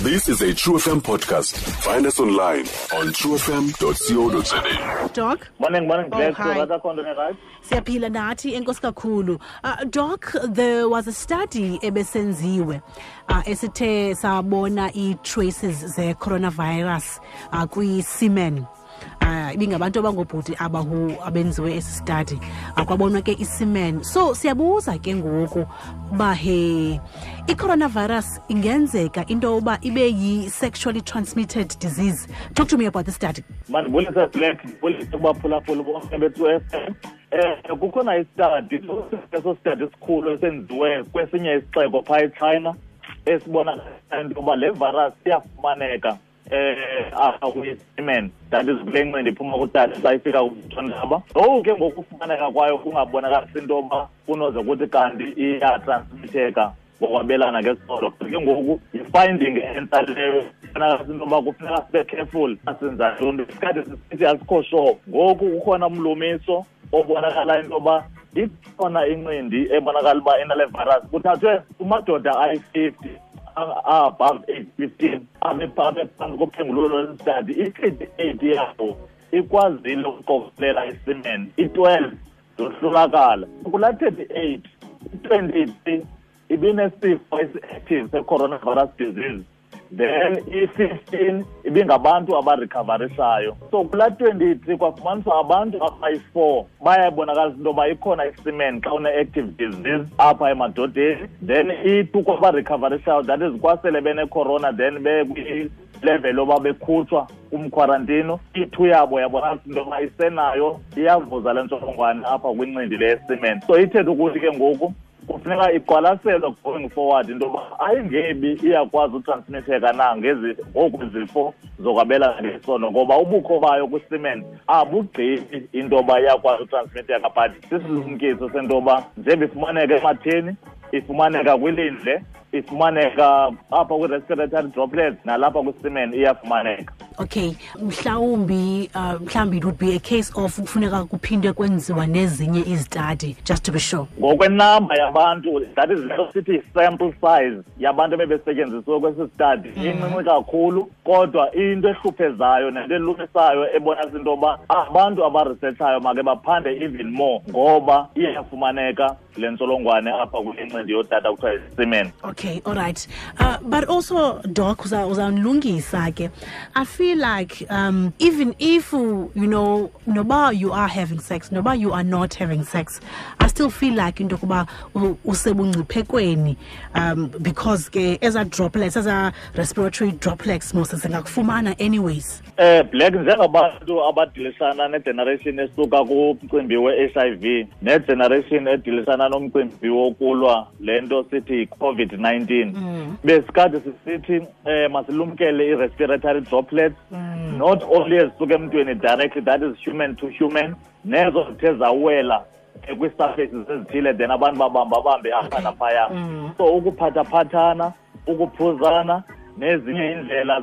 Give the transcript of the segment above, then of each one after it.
This is a True FM podcast. Find us online on truefm.co.za. Doc? Morning, morning, Oh, Black. hi. Rather khona right? Siyaphila nathi, enkosi kakhulu. Doc, there was a study ebesenziwe esithe sabona i-traces ze-coronavirus kwi-semen. Ibingabantu abangobhuti abahu abenziwe esi study. Kwabonwa ke i-semen. So siyabuza ke ngoku uba he i-coronavirus ingenzeka into yoba ibe yi-sexually transmitted disease. Talk to me about the study. Mandibulise, Black, ndibulise kubaphulaphuli bonke be-True FM. Kukhona i-study, eso study esikhulu esenziwe kwesinye isixeko phaa eChina esibonakala into yoba le virus iyafumaneka apha kwi-semen, that is kule ncindi iphuma kutata xa ifika kumthondaba. Ngoku ke ngokufumaneka kwayo kungabonakalisi into yoba kunoze kuthi kanti iyatransmitheka ngokwabelana ngesondo. Ke ngoku yi-finding entsha leyo, ibonakalisa into yoba kufuneka sibe careful asenza ntoni. Isikhathi sisithi asikho sure. Ngoku kukhona umlumiso obonakala into yoba ikhona incindi ebonakala uba inale virus. Kuthathwe kumadoda ayi-50 above age 15 abe phantsi kophengululo lwesi-study. I-38 yabo ikwazile ukuqokelela i-semen, i-12 zohlulakala. Kulaa 38, i-23 ibinesifo esi-active se-coronavirus disease, then i-15 ibingabantu abarecoverishayo. So kulaa 23 kwafumaniswa abantu abayi-4 bayabonakalisa into yoba ikhona i-semen xa une-active disease apha emadodeni, then i-2 kwabarecoverishayo, that is kwasele bene-corona then bekwi-level yoba bekhutshwa kumkhwarantino, i-2 yabo yabonakalisa into yoba isenayo, iyavuza le ntsholongwane apha kwincindi le ye-semen. So ithethe ukuthi ke ngoku kufuneka iqwalaselwe going forward into yoba ayingebi iyakwazi utransmitheka na ngezi ngoku zifo zokwabelana ngesondo, ngoba ubukho bayo kwi-semen abugqibi into yoba iyakwazi utransmitheka, but sisilumkiso sento yoba njengoba ifumaneka ematheni, ifumaneka kwilindle, ifumaneka apha kwi-respiratory droplets, nalapha kwi-semen iyafumaneka. Okay, mhlawumbi it would be a case of kufuneka kuphinde kwenziwa nezinye izi-study just to be sure. Ngokwenamba yabantu, that is leyo sithi sample size yabantu ebebesetyenzisiwe kwesi study, incinci kakhulu, kodwa into ehluphezayo nento elumisayo ebonisa into yoba abantu abaresearchayo make baphande even more, ngoba iyafumaneka le ntsholongwane apha kule ncindi yotata kuthiwa yi-semen. Okay, all right. But also, Doc, uzawundilungisa ke. I feel like even if, noba you are having sex, noba you are not having sex, I still feel like into yokuba usebungciphekweni, because ke eza droplets, eza respiratory droplets mos zingakufumana anyways. Black, njengabantu abadilishana ne-generation esuka kumcimbi we-HIV ne-generation edilisana nomcimbi wokulwa le nto sithi yi-COVID-19, besikade sisithi masilumkele i-respiratory droplets, not only ezisuka emntwini directly, that is human to human, nezo zithe zawela kwii-surfaces ezithile, then abantu babamba bambe apha naphaya. So ukuphathaphathana, ukuphuzana nezinye iindlela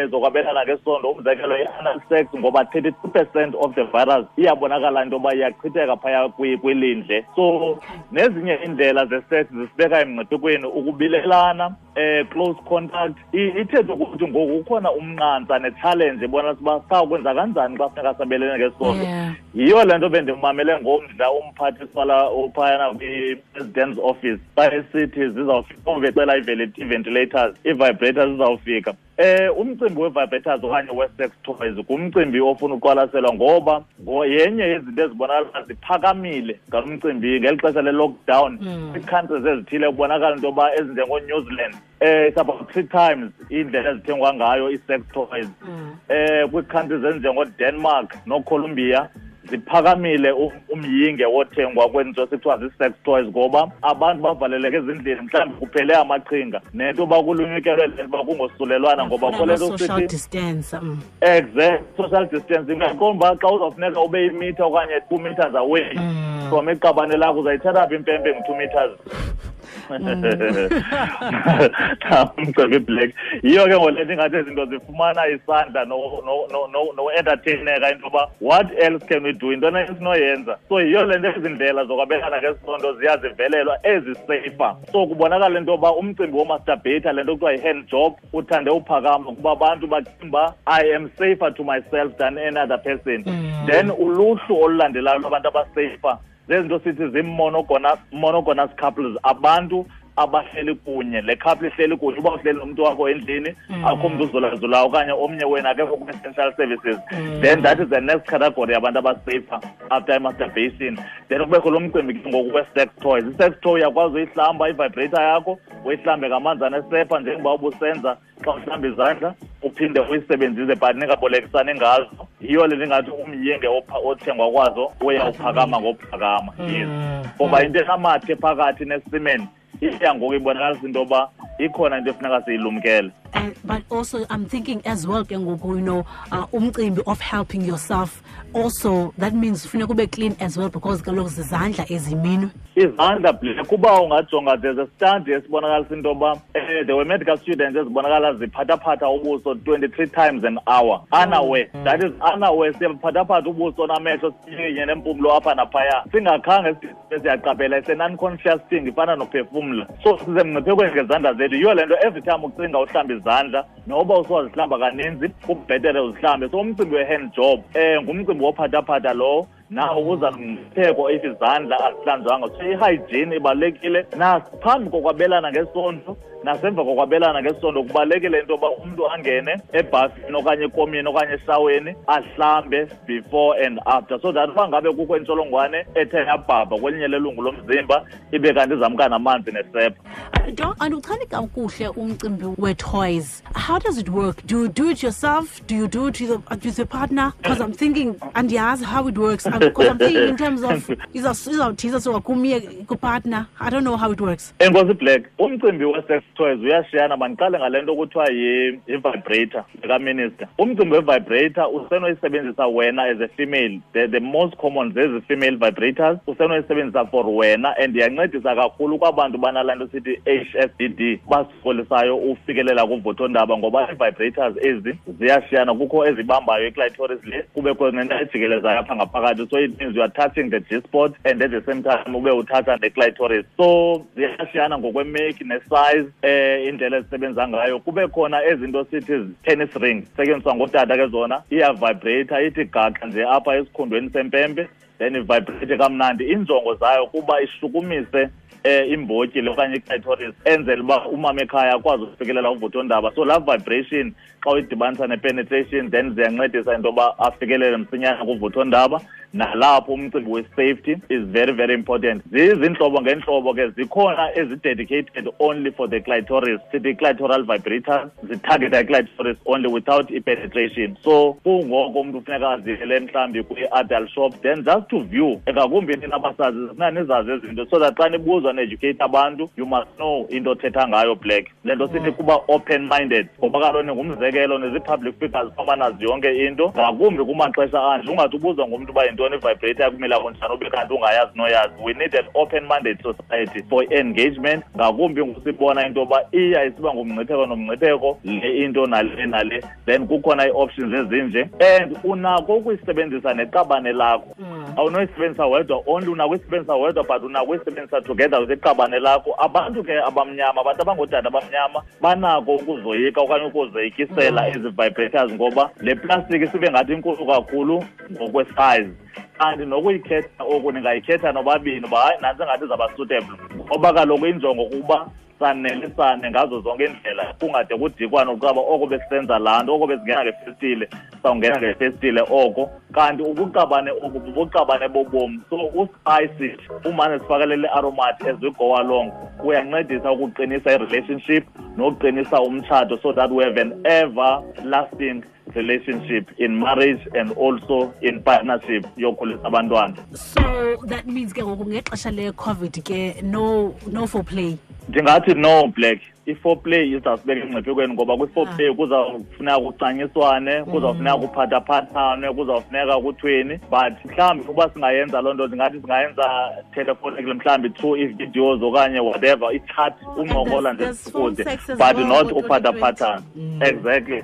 zokwabelana ngesondo, umzekelo i-anal sex, ngoba 32% of the virus iyabonakala into yoba iyachitheka phaya kwilindle. So nezinye iindlela ze-sex zisibeka emngciphekweni, ukubilelana, close contact. Ithethe ukuthi ngoku kukhona umnqantsa ne-challenge ebonisa uba sawukwenza kanjani xa funeka sabelene ngesondo. Yiyo le nto bendimamele ngomdla umphathiswa la uphayana kwi-president's office xa esithi zizawufika, becela ii-ventilators, ii-vibrators zizawufika. Umcimbi we-vibrators okanye we-sex toys ngumcimbi ofuna uqwalaselwa, ngoba yenye yezinto ezibonakala ziphakamile ngalo mcimbi ngeli xesha le-lockdown. Kwii-countries ezithile kubonakala into yoba ezinjengoNew Zealand, it's about 3 times indlela ezithengwa ngayo ii-sex toys. Kwii-countries ezinjengoDenmark noColombia ziphakamile umyinge wothengwa kwezinto esithiwa zii-sex toys, ngoba abantu bavaleleke ezindlini, mhlawumbi kuphele amaqhinga nento yoba kulunyukelwe le nto uba kungosulelwana, ngoba Bafuna kule nto ama-social sithi distance. Exact, social distancing. Uyaqonda uba xa uzawufuneka ube yimitha okanye 2 meters away from iqabane lakho, uzayithatha phi impempe ngu-2 meters? Umcimbi Black yiyo ke ngole nto ingathi izinto zifumana isandla no-entertaineka into yoba what else can we do, into esinoyenza. So yiyo le nto ezi ndlela zokwabelana ngesondo ziyazivelelwa ezisafer. So kubonakala into yoba umcimbi womasturbate, le nto kuthiwa yi-hand job, uthande uphakama kuba abantu bacinga uba I am safer to myself than any other person. Then uluhlu olulandelayo lwabantu abasafer zezinto sithi zii-monogamous couples, abantu abahleli kunye. Le couple ihleli kunye, uba uhleli nomntu wakho endlini, akho mntu uzulazulayo okanye omnye wena akekho kwi-essential services, then that is the next category yabantu abasafer after i-masturbation. Then kubekho lo mcimbi ke ngoku we-sex toys. I-sex toy uyakwazi uyihlamba, i-vibrator yakho uyihlambe ngamanzi anesepha njengoba ubusenza xa uhlamba izandla, uphinde uyisebenzise, but ningabolekisani ngazo. Yiyo le ndingathi umyinge othengwa kwazo uya uphakama ngokuphakama, yes, ngoba into enamathe phakathi nesemen iya ngoku ibonakalisa into yoba ikhona into efuneka siyilumkele. But also I'm thinking as well ke ngoku, umcimbi of helping yourself also, that means funeka ube clean as well, because kaloku zizandla eziminwe. Izandla, Black, kuba ungajonga, there's a study esibonakalisa into yoba there were medical students ezibonakala ziphathaphatha ubuso 23 times an hour unaware. That is unaware, siyaphathaphatha ubuso namehlo, sinye nempumlo apha naphaya, singakhange siyaqaphela. It's a non-conscious thing, ifana nophefumla. So sisemngciphekweni ngezandla zethu. Yiyo le nto every time ucinga uhlamba izandla, noba usowazihlamba kaninzi, kubhetere uzihlambe. So umcimbi we-hand job ngumcimbi wophathaphatha lowo, nawo uza nomngcipheko if izandla azihlanjwanga. So i-hygiene ibalulekile naphambi kokwabelana ngesondo nasemva kokwabelana ngesondo. Kubalulekile into yoba umntu angene ebhafini okanye ekomini okanye eshaweni, ahlambe before and after, so that uba ngabe kukho intsholongwane ethe yabhabha kwelinye lelungu lomzimba, ibe kanti izamka namanzi nesepha. Doc, andiwuchani kakuhle umcimbi we-toys. How does it work? Do you do it yourself? Do you do it with your partner? Because I'm thinking, andiyazi how it works, because I'm thinking in terms of izawuthiza suka kumye kupartner. I don't know how it works. Enkosi, Black. Umcimbi we-sex toys uyashiyana. Mandiqale ngale nto kuthiwa yi-vibrator kaminister. Umcimbi we-vibrator usenoyisebenzisa wena as a female. The most common zezi female vibrators, usenoyisebenzisa for wena, and iyancedisa kakhulu kwabantu banalaa nto sithi HSDD, basokolisayo ufikelela kuvuthondaba, ngoba ii-vibrators ezi ziyashiyana. Kukho ezibambayo iclitoris le, kubekho nento ejikelezayo apha ngaphakathi, so it means you are touching the G spot and at the same time ube uthatha neclitoris. So ziyashiyana ngokwemake nesize, indlela ezisebenza ngayo. Kube khona ezinto sithi tennis ring, setyenziswa ngootata ke zona, iyavibrate, ithi gaxa nje apha esikhundweni sempempe, then ivibrate kamnandi. Injongo zayo kuba ishukumise imbotyi le okanye iclitoris, enzele uba umama ekhaya akwazi ukufikelela uvuthondaba. So laa vibration xa uyidibanisa ne-penetration, then ziyancedisa into yoba afikelele msinyane kuvuthondaba. Nalapho umcimbi we-safety is very, very important. Zizintlobo ngeentlobo ke, zikhona ezi-dedicated only for the clitoris, sithi clitoral vibrators, zitargeta i-clitoris only without i-penetration. So kungoko umntu funeka aziyele mhlawumbi kwi-adult shop, then just to view. Ngakumbi nina basazi, zifuna nizazi ezinto so that xa nibuzwa ne-educate abantu, you must know into othetha ngayo, Black. Le nto sithi kuba open minded, ngoba kaloku ningumzekelo, nizi-public figures, fama nazi yonke into, ngakumbi kumaxesha anje. Ungathi ubuzwa ngumntu uba yintoni i-vibrator, kumila kunjani, ube kanti ungayazi noyazi. We need an open minded society for engagement, ngakumbi ngusibona into yoba iya isiba ngumngcipheko nomngcipheko le into nale nale. Then kukhona ii-options ezinje, and unako ukuyisebenzisa neqabane lakho. Awunoyisebenzisa wedwa only, unako uyisebenzisa wedwa, but unako uyisebenzisa together with iqabane lakho. Abantu ke abamnyama, abantu abangootata abamnyama banako ukuzoyika okanye ukuzoyikisela ezi vibrators, ngoba le plastic isibe ngathi inkulu kakhulu ngokwesize. Kanti nokuyikhetha oku ningayikhetha nobabini, uba hayi, nantsi engathi izawuba suitable, ngoba kaloku injongo kukuba sanelisane ngazo zonke iindlela, kungade kudikwane uqaba oko besisenza laa nto, oko besingena ngefestile, sawungena ngefestile oko. Kanti ubuqabane obu bubuqabane bobomi, so uspice it, umane sifakelele i-aromat as we go along, kuyancedisa ukuqinisa i-relationship nokuqinisa umtshato, so that we have an everlasting relationship in marriage and also in partnership yokhulisa abantwana. So that means ke ngoku ngexesha le-COVID ke, no foreplay. Ndingathi no, Black. I-foreplay izawusibeka emngciphekweni, ngoba kwi-foreplay kuzawufuneka kucanyiswane, kuzawufuneka kuphathaphathane, kuzawufuneka kuthweni. But mhlawumbi uba singayenza loo nto, ndingathi singayenza telephonically, mhlawumbi through ii-videos okanye whatever, i-chat, uncokola nje kude, but not uphathaphathana. Exactly.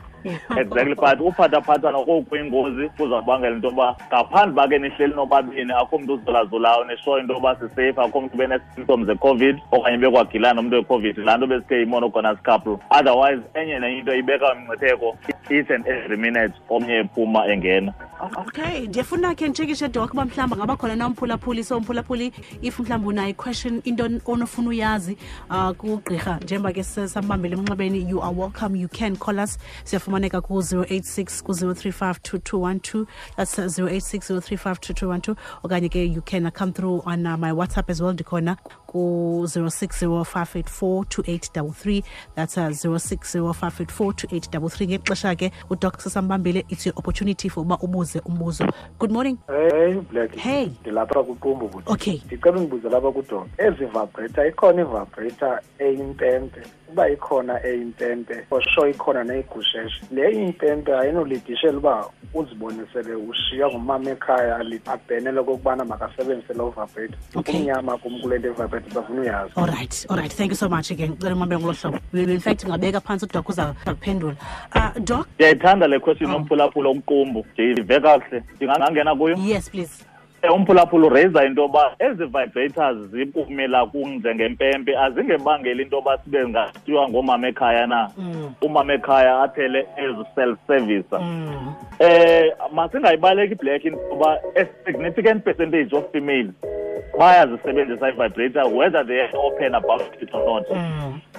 Exactly, but uphathaphathana kokuyingozi, kuzawubangela into yoba ngaphandle uba ke nihleli nobabini, akho mntu uzolazulayo nishoyo into yoba sisafe, akho mntu bene-symptoms ze-COVID okanye bekwagilana nomntu we-COVID, laa nto besithe yi-monogamous couple. Otherwise enye nenye into ibeka umngcipheko each and every minute omnye ephuma engena. Okay, ndiyafuna ke nditshekishe, Doc, uba mhlawumbi ngaba khona na umphulaphuli. So umphulaphuli, if mhlawumbi unayo i-question, into onofuna uyazi kugqirha, njengoba ke sambambele emnxebeni, you are welcome, you can call us. Siyafumaneka ku-086 ku-035 2212, that's 086 035 2212, okanye ke you can come through on my WhatsApp as well, ndikhona ku-060 584 2833, that's 060 584 2833. Ngexesha ke uDoc sesambambile, it's your opportunity for uba ubuze umbuzo. Good morning. Hey Black. Hey. Ndilapha kuQumbu buti. Okay. Ndicela ungibuze lapha kuDoc. Ezi vibrator, ikhona ivibrator eyimpempe? Uba ikhona eyimpempe, for sure ikhona neyigusheshe. Le impempe ayinolidishela uba uzibone sele ushiywa ngumama ekhaya, abhenele okokubana makasebenzise loo vibrator. Okay. Kumnyama kum kule nto vibrator, bafuna uyazi. All right. Thank you so much again. Cela umambe ngolo hlobo. In fact, ungabeka phantsi, uDoc uza kuphendula. Doc? Ndiyayithanda le question nomphulaphula omqumbu. Ndiyive kakuhle. Ndingangena kuyo? Yes, please. Umphulaphula uraisa into yoba ezi vibrators zikumila kunjengempempe azingebangeli into yoba sibe ngatyiwa ngoomama ekhaya na, umama ekhaya aphele ezi-self-service. Masingayibaleki, Black, into yoba a significant percentage of females bayazisebenzisa i-vibrator, whether they are open about it or not.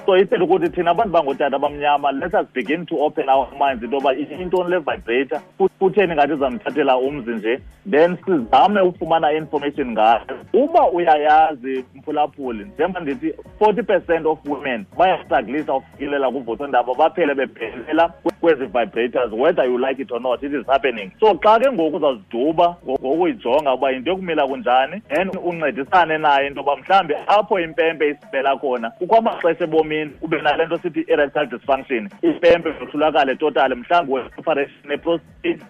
So ithetha ukuthi thina abantu bangootata abamnyama, let us begin to open our minds into yoba intoni le vibrator, kutheni ngathi izamthathela umzi nje, then sizame ufumana information ngayo. Uba uyayazi, mphulaphuli, njengoba ndithi 40% of women bayastrugglisa ufikelela kuvuthondaba, baphele bebhelela kwezi vibrators, whether you like it or not, it is happening. So xa ke ngoku uzaziduba ngokuyijonga uba yinto yokumila kunjani, and uncedisane naye into yoba mhlawumbi apho impempe isibela khona, kukho amaxesha ebomini ube nale nto sithi erectile dysfunction, impempe yohlulakale totally, mhlawumbi we-operation neprostate,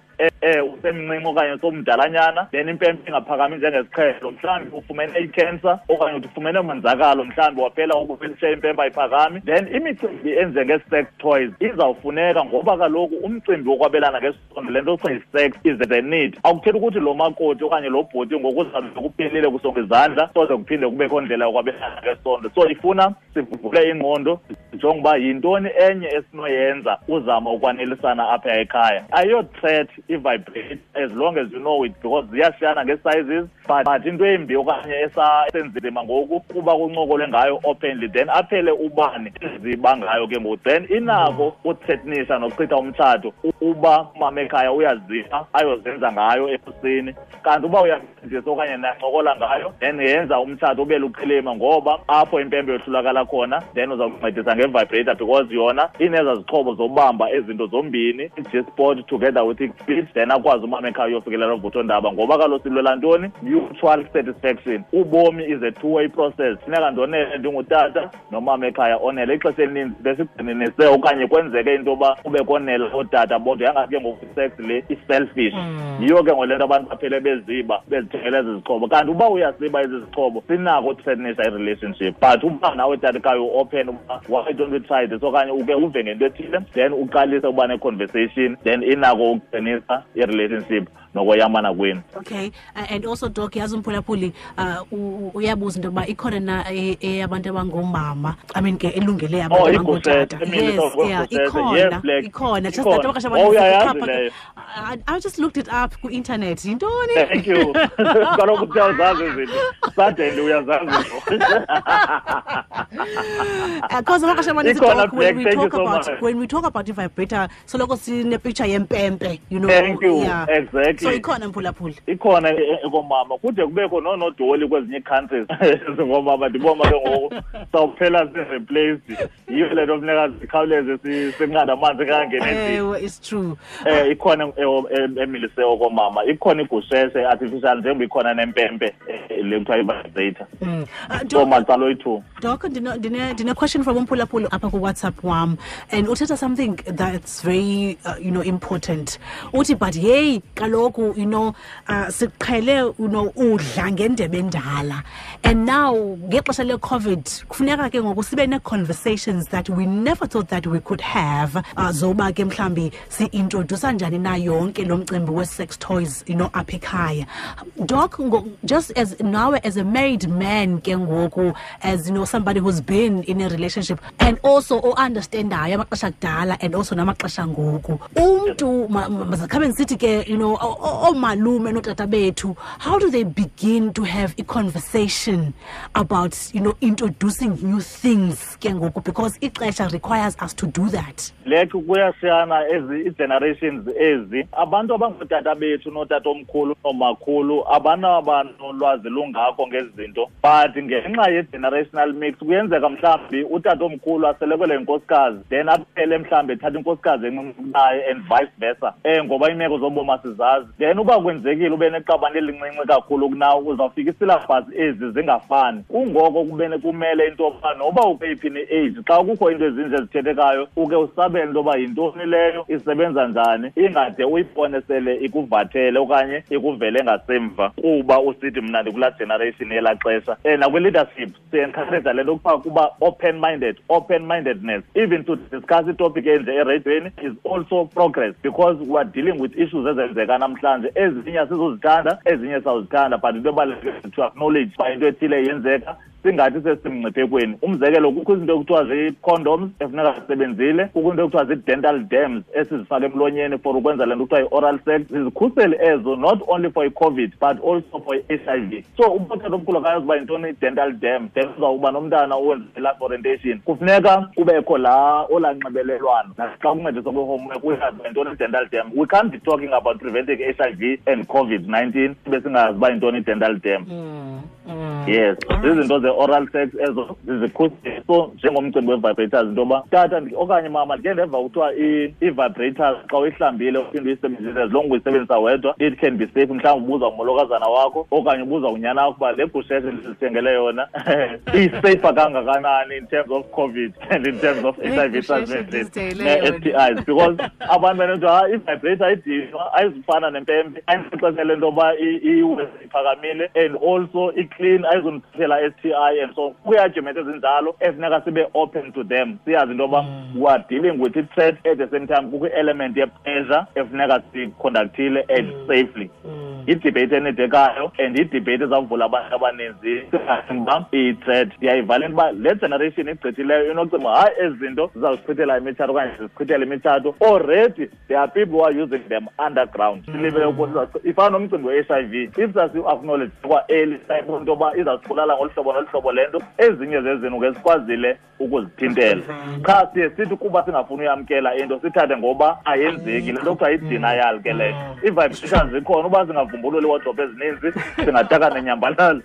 usemncinci okanye somdalanyana, then impempe ingaphakami njengesiqhelo, mhlawumbi ufumene i-cancer okanye uthi ufumene umonzakalo, mhlawumbi waphela ukufilishe impempe ayiphakami, then imicimbi enjenge-sex toys izawufuneka, ngoba kaloku umcimbi wokwabelana ngesondo, le nto kuthiwa yi-sex, is the need. Akuthethi ukuthi lo makoti okanye lo bhoti ngokuzabe kuphelile kusonga izandla, soze kuphinde kubekho ndlela yokwabelana ngesondo. So ifuna sivule ingqondo, sijonge uba yintoni enye esinoyenza uzama ukwanelisana apha ekhaya. Ayiyo-threat i-vibrate as long as you know it, because ziyashiyana ngee-sizes, but into embi okanye esenzima ngoku kuba kuncokolwe ngayo openly, then aphele ubani eziba ngayo ke ngoku, then inako uthreatenisha nokuchitha umtshato uba umama ekhaya uyaziba ayozenza ngayo ekuseni. Kanti uba uyafundisa okanye nancokola ngayo, then yenza umtshato ube luqilima, ngoba apho impempe yohlulakala khona, then uzawuncedisa nge-vibrator, because yona ineza zixhobo zobamba ezinto zombini, i-G-spot together with i-clit, then akwazi umama ekhaya uyofikelela uvuthondaba, ngoba kaloku silwela ntoni? Mutual satisfaction. Ubomi is a two-way process. Funeka ndonele ndingutata nomama ekhaya onele. Ixesha elininzi besigxininise okanye kwenzeke into yoba kube konela ootata bodwa, yangathi ke ngoku sex le i-selfish. Yiyo ke ngole nto abantu baphele beziba bezithengela ezi zixhobo. Kanti uba uyasiba ezi zixhobo, sinako uthreatenisha i-relationship. But uba nawe tata ekhaya u-open uba why don't we try this, okanye uke uve ngento ethile, then uqalise uba ne-conversation, then inako ukuqinisa i-relationship nokoyamana kwenu. Okay, and also Doc, yazi umphulaphuli uyabuza into yoba ikhona na eyabantu abangoomama, I mean ke elungele abantu Oh, abangootata. igushethe, Yes, yeah, igushethe. Yes, ikhona, Black. ikhona. Just Ikhona. that amaxesha Oh, amaninzi uyayazi kuxhaphake. leyo. I just looked it up ku-internet. Yintoni? Thank you. Kaloku uyazazi izinto. Suddenly uyazazi izinto. Because amaxesha amaninzi, Ikhona, Doc, when Black, we thank you talk so about much. when we talk about i-vibrator, soloko sine-picture yempempe. Thank you. Yeah. Exactly. So ikhona, mphulaphuli. Ikhona ekomama, kude kubekho noonodoli kwezinye ii-countries ngoomama. Ndibona ke ngoku sawuphela si-replaced, yiyo le nto funeka zikhawuleze sinqanda amanzi kangene endlini. Ewe, it's true. Ikhona emilise okomama. Ikhona igusheshe artificial njengoba ikhona nempempe le kuthiwa i-vibrator. So macala oyi-two. Doc, ndine question from umphulaphuli apha ku-WhatsApp wam, and uthetha something that's very important. Uthi but hey kaloku siqhele udla ngendebe endala, and now ngexesha le-COVID kufuneka ke ngoku sibe nee-conversations that we never thought that we could have, zoba ke mhlambi si-introdusa njani na yonke lo mcimbi we-sex toys apha ekhaya. Doc, just as now as a married man ke ngoku, as somebody who's been in a relationship and also o-understandayo amaxesha kudala and also namaxesha ngoku, umntu mazakhabe ndisithi ke oomalume nootata bethu, how do they begin to have a conversation about introducing new things ke ngoku, because ixesha requires us to do that? Lek kuyashiyana ezi generations ezi. Abantu abangootata bethu nootatomkhulu noomakhulu abanolwazi lungako ngezi zinto, but ngenxa ye-generational mix kuyenzeka mhlawumbi utatomkhulu aselekelwe yinkosikazi, then aphele mhlawumbi ethatha inkosikazi encinci kunaye and vice versa, ngoba iimeko zobomi asizazi. Then uba kwenzekile ube neqabane elincinci kakhulu kunawe, uzawufika isilabhasi ezi zingafani. Kungoko kumele into yoba noba ukweyiphi ne-age, xa kukho into ezinje ezithethekayo uke usabele into yoba yintoni leyo, isebenza njani, ingade uyibone sele ikuvathele okanye ikuvele ngasemva kuba usithi mna ndikulaa generation yelaa xesha. Nakwi-leadership siencourage le nto kuthiwa kuba open-minded, open-mindedness. Even to discuss itopic enje ereyidweni is also progress, because we are dealing with issues ezenzeka namhlanje. Ezinye asizozithanda, ezinye sawuzithanda, but into ebalulekileyo to acknowledge uba into ethile yenzeka, singathi sesimngciphekweni. Umzekelo, kukho izinto ekuthiwa zii-condoms efuneka zisebenzile, kukho into ekuthiwa zii-dental dams esizifaka emlonyeni for ukwenza le nto kuthiwa yi-oral sex. Zizikhuseli ezo not only for i-COVID but also for i-HIV. So ubotata omkhulu akayazi uba yintoni i-dental dam, then uzawuba nomntana owenza i-life orientation. Kufuneka kubekho laa olaa nxibelelwano naxa kuncediswa kwi-homework uyazi uba yintoni i-dental dam. We can't be talking about preventing HIV and COVID-19 sibe singazi uba yintoni i-dental dam. Yes, zizinto ze-oral sex ezo zizikhuseli. So njengomcimbi we-vibrators, into yoba tata okanye mama ndike ndeva kuthiwa i-vibrators xa uyihlambile uphinde uyisebenzise, as long uyisebenzisa wedwa it can be safe. Mhlawumbi ubuza ngumolokazana wakho okanye ubuza unyana wakho uba le gusheshe ndizithengele yona iseyifa kangakanani in terms of COVID and in terms of HIV transmission ne-STIs, because abantu benento hayi i-vibrator ayidinwa, ayizufana nempempe, ayinixesha le nto yoba iwe iphakamile and also i-clean, ayizundiphathela STI and so on. Kwi-argument ezinjalo efuneka sibe open to them, siyazi into yoba we are dealing with i-threat, at the same time kukho i-element ye-pleasure efuneka siyiconductile and safely. Idebate enidekayo and idebate ezawuvula abantu abaninzi uba iyi-threat. Ndiyayivala into uba le generation igqithileyo inocinga hayi ezi zinto zizawusichithela imitshato okanye zizichithela imitshato. Already there are people who are using them underground. Silibele ifana nomcimbi we-HIV, if sasi-acknowledge kwa-early into yoba izawusibulala ngolu hlobo nolu hlobo le nto, ezinye zezinto ke sikwazile ukuzithintela. Qha siye sithi kuba singafuni uyamkela into sithathe ngoba ayenzeki le nto kuthiwa yi-denial ke leyo. Ii-vibrations zikhona, uba singavumbululi iiwardrobe ezininzi singataka nenyambalala.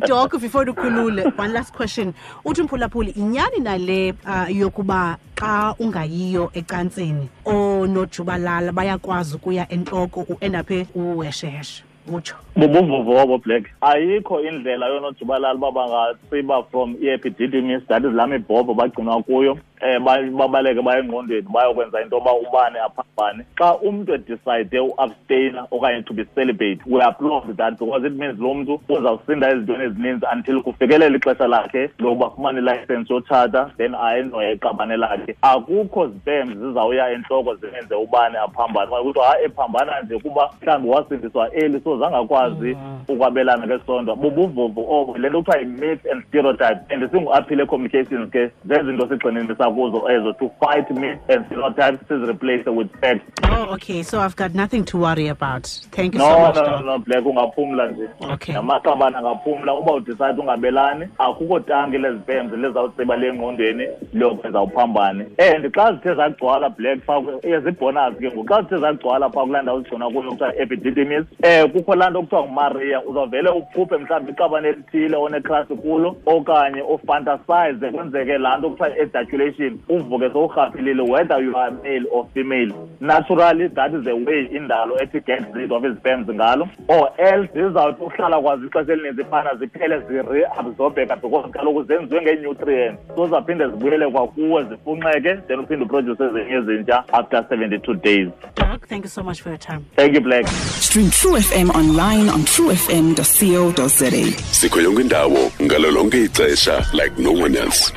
Doc, before ukhulule, one last question. Uthi umphulaphuli, inyani nale yokuba xa ungayiyo ecansini oonojubalala bayakwazi ukuya entloko u-endaphe uwesheshe? Utsho. Bubuvuvobo, Black. Ayikho indlela yoonojubalala uba bangatsiba from i-epididymis, that is laa mibhobho bagcinwa kuyo, babaleke baye engqondweni bayokwenza into yoba ubane aphambane. Xa umntu edecide uabstaina okanye to be celibate, we applaud that because it means lo mntu uzawusinda ezintweni ezininzi until kufikelele ixesha lakhe lokuba afumane ilayisensi yotshata, then ayendoye iqabane lakhe. Akukho sperms zizawuya entloko zimenze ubane aphambane. Okanye kuthiwa hayi ephambana nje kuba mhlawumbi wasindiswa early so zangakwazi ukwabelana ngesondo. Bubuvuvu obo, le nto kuthiwa yi-myth and stereotype, and singu-Aphile Communications ke zezinto sigxininisa kuzo ezo, to fight myths and stereotypes, sizireplace with facts. Oh, okay, so I've got nothing to worry about. Thank you so much. No, Black, ungaphumla nje. Okay. Namaqabane angaphumla uba udecide ungabelani, akukho tanki lezipemzi lizawutsiba le ngqondweni liyokwenza uphambane. And xa zithe zagcwala, Black, phaa ezibonus ke ngoku, xa zithe zagcwala phaa kulaa ndawo zigcinwa kuyo kuthiwa epididymis, kukho laa nto kuthiwa nguMaria, uzawuvele uphuphe mhlawumbi iqabane elithile onecrush kulo okanye ufantasize kwenzeke laa nto kuthiwa ejaculation. masturbation uvuke sowurhaphilile, whether you are male or female. Naturally, that is the way indalo ethi get rid of ii-sperms ngalo, or else zizawuthi uhlala kwazo ixesha elininzi phana ziphele zireabsorbeka, because kaloku zenziwe ngee-nutrients, so zaphinde zibuyele kwakuwe zifunxeke, then uphinde uproduce ezinye ezintsha after 72 days. Doc, thank you so much for your time. Thank you, Black. Stream True FM online on truefm.co.za. Sikho yonke indawo ngalo lonke ixesha like no one else.